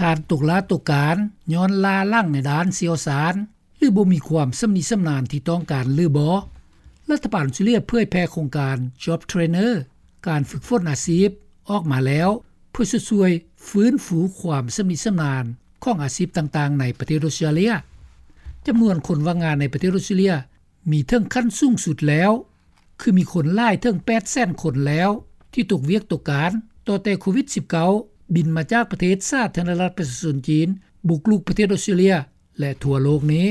ທ່ານຕົກຫຼ້າຕົກການ ຍ້ອນລ້າຫຼັງໃນດ້ານຊ່ຽວຊານ ຫຼືບໍ່ມີຄວາມຊຳນິຊຳນານທີ່ຕ້ອງການຫຼືບໍ່. ລັດຖະບານອອສເຕຣເລັຽເຜີຍແຜ່ໂຄງການ Job Trainer ການຝຶກຝົນອາຊີບ ອອກມາແລ້ວ ເພື່ອຊ່ວຍຟື້ນຟູຄວາມຊຳນິຊຳນານ ຂອງອາຊີບຕ່າງໆໃນປະເທດອອສເຕຣເລັຽ. ຈຳນວນຄົນວ່າງງານໃນປະເທດອອສເຕຣເລັຽ ມີເຖິງຂັ້ນສູງສຸດແລ້ວ ຄືມີຄົນຫຼາຍເຖິງ ແປດແສນຄົນແລ້ວ ທີ່ຕົກວຽກຕົກການ ຕໍ່ແຕ່ໂຄວິດ-19 ບິນມາຈາກປະເທດສາທາລະນະລັດປະຊາຊົນຈີນ ບຸກລຸກປະເທດອອສເຕຣເລັຽ ແລະທົ່ວໂລກນີ້.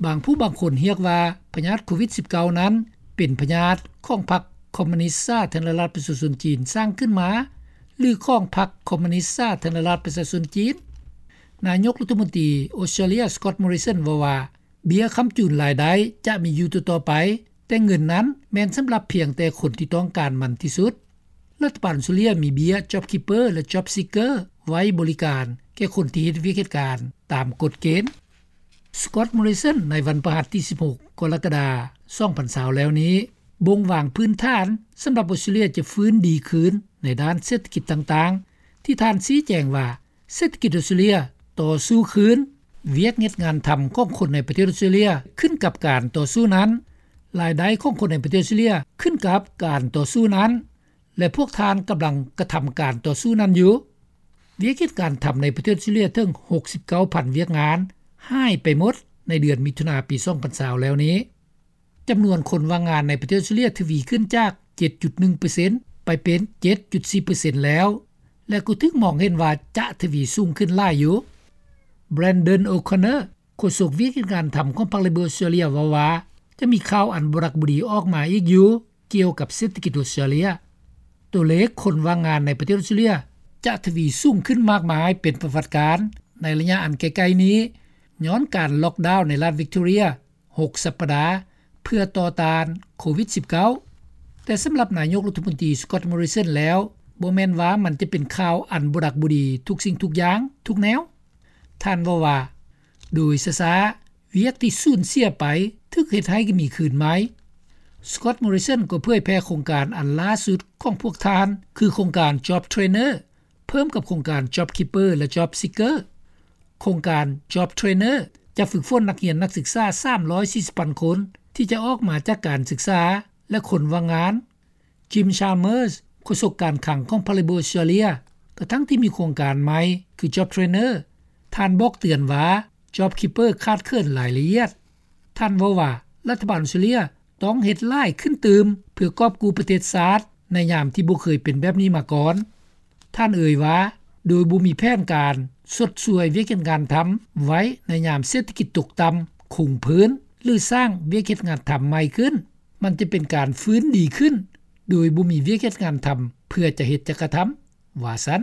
ບາງຜູ້ບາງຄົນຮຽກວ່າ ພະຍາດໂຄວິດ-19 ນັ້ນ ເປັນພະຍາດຂອງພັກຄອມມູນິສສາທາລະນະລັດປະຊາຊົນຈີນສ້າງຂຶ້ນມາ ຫຼືຂອງພັກຄອມມູນິສສາທາລະນະລັດປະຊາຊົນຈີນ. ນາຍົກລັດຖະມົນຕີອອສເຕຣເລັຽ Scott Morrison ເວົ້າວ່າ ເບັ້ຍຄ້ຳຈູນລາຍໄດ້ຈະມີຢູ່ຕໍ່ໆໄປ, ແຕ່ເງິນນັ້ນແມ່ນສຳລັບພຽງແຕ່ຄົນທີ່ຕ້ອງການມັນທີ່ສຸດ. ລັດຖະບານອອສເຕຣເລັຽມີເບັ້ຍ JobKeeper ແລະ JobSeeker ໄວ້ບໍລິການແກ່ຄົນທີ່ເຮັດວຽກເຮັດການຕາມກົດເກນ. Scott Morrison ໃນວັນພະຫັດທີສິບຫົກ ກໍລະກະດາ ສອງພັນຊາວ ແລ້ວນີ້ ບົ່ງວາງພື້ນຖານສຳລັບອອສເຕຣເລັຽຈະຟື້ນດີຄືນໃນດ້ານເສດຖະກິດຕ່າງໆ ທີ່ທ່ານຊີ້ແຈງວ່າ ເສດຖະກິດອອສເຕຣເລັຽຕໍ່ສູ້ຄືນ, ວຽກເຮັດງານທຳຂອງຄົນໃນປະເທດອອສເຕຣເລັຽຂຶ້ນກັບການຕໍ່ສູ້ນັ້ນ, ລາຍໄດ້ຂອງຄົນໃນປະເທດອອສເຕຣເລັຽຂຶ້ນກັບການຕໍ່ສູ້ນັ້ນ ແລະ ພວກທ່ານກຳລັງກະທຳການຕໍ່ສູ້ນັ້ນຢູ່. ວຽກເຮັດການທຳໃນປະເທດອອສເຕຣເລັຽເຖິງ ຫົກສິບເກົ້າພັນ ວຽກງານຫາຍໄປໝົດໃນເດືອນມິຖຸນາປີ ສອງພັນຊາວ ແລ້ວນີ້. ຈຳນວນຄົນວ່າງງານໃນປະເທດອອສເຕຣເລັຽທະວີຂຶ້ນຈາກ ເຈັດຈຸດໜຶ່ງເປີເຊັນ ໄປເປັນ ເຈັດຈຸດສີ່ເປີເຊັນ ແລ້ວ ແລະ ກໍຖືກມອງເຫັນວ່າຈະທະວີສູງຂຶ້ນຫຼາຍຢູ່. Brandon O'Connor ໂຄສົກວຽກເຮັດງານທຳຂອງພັກ Labor ອອສເຕຣເລັຽ ເວົ້າວ່າ ຈະມີຂ່າວອັນບໍ່ຮັກບໍ່ດີອອກມາອີກຢູ່ ກ່ຽວກັບເສດຖະກິດອອສເຕຣເລັຽ. ຕົວເລກຄົນວ່າງງານໃນປະເທດອອສເຕຣເລັຽຈະທະວີສູງຂຶ້ນມາກມາຍເປັນປະຫວັດການໃນໄລຍະອັນໃກ້ໆນີ້ ຍ້ອນການລັອກດາວໃນລັດ Victoria ຫົກສັບປະດາ ເພື່ອຕໍ່ຕ້ານໂຄວິດ-19. ແຕ່ສຳລັບນາຍົກລັດຖະມົນຕີ Scott Morrison ແລ້ວ ບໍ່ແມ່ນວ່າມັນຈະເປັນຂ່າວອັນບໍ່ຮັກບໍ່ດີທຸກສິ່ງທຸກຢ່າງທຸກແນວ. ທ່ານເວົ້າວ່າ ໂດຍຊ້າໆ ວຽກທີ່ສູນເສຍໄປຖືກເຮັດໃຫ້ມີຄືນໃໝ່. Scott Morrison ກໍເຜີຍແຜ່ໂຄງການອັນລ່າສຸດຂອງພວກທ່ານ ຄືໂຄງການ Job Trainer ເພີ່ມກັບໂຄງການ JobKeeper ແລະ JobSeeker. ໂຄງການ Job Trainer ຈະຝຶກຝົນນັກຮຽນນັກສຶກສາ ສາມຮ້ອຍສີ່ສິບພັນຄົນ ທີ່ຈະອອກມາຈາກການສຶກສາ ແລະ ຄົນວ່າງງານ. Jim Chalmers ໂຄສົກການຄັງຂອງພັກ Labor ອອສເຕຣເລັຽ ກະທັ່ງທີ່ມີໂຄງການໃໝ່ຄື Job Trainer ທ່ານບອກເຕືອນວ່າ JobKeeper ຂາດເຂີນລາຍລະອຽດ. ທ່ານເວົ້າວ່າ ລັດຖະບານອອສເຕຣເລັຽຕ້ອງເຮັດຫຼາຍຂຶ້ນຕື່ມ ເພື່ອກອບກູ້ປະເທດຊາດໃນຍາມທີ່ບໍ່ເຄີຍເປັນແບບນີ້ມາກ່ອນ. ທ່ານເອີ່ຍວ່າ ໂດຍບໍ່ມີແຜນການຊົດຊ່ວຍວຽກເຮັດງານທຳໄວ້ໃນຍາມເສດຖະກິດຕົກຕ່ຳຄົງພື້ນ ຫຼື ສ້າງວຽກເຮັດງານທຳໃໝ່ຂຶ້ນ, ມັນຈະເປັນການຟື້ນດີຂຶ້ນໂດຍບໍ່ມີວຽກເຮັດງານທຳເພື່ອຈະເຮັດຈະກະທຳ, ວ່າຊັ້ນ.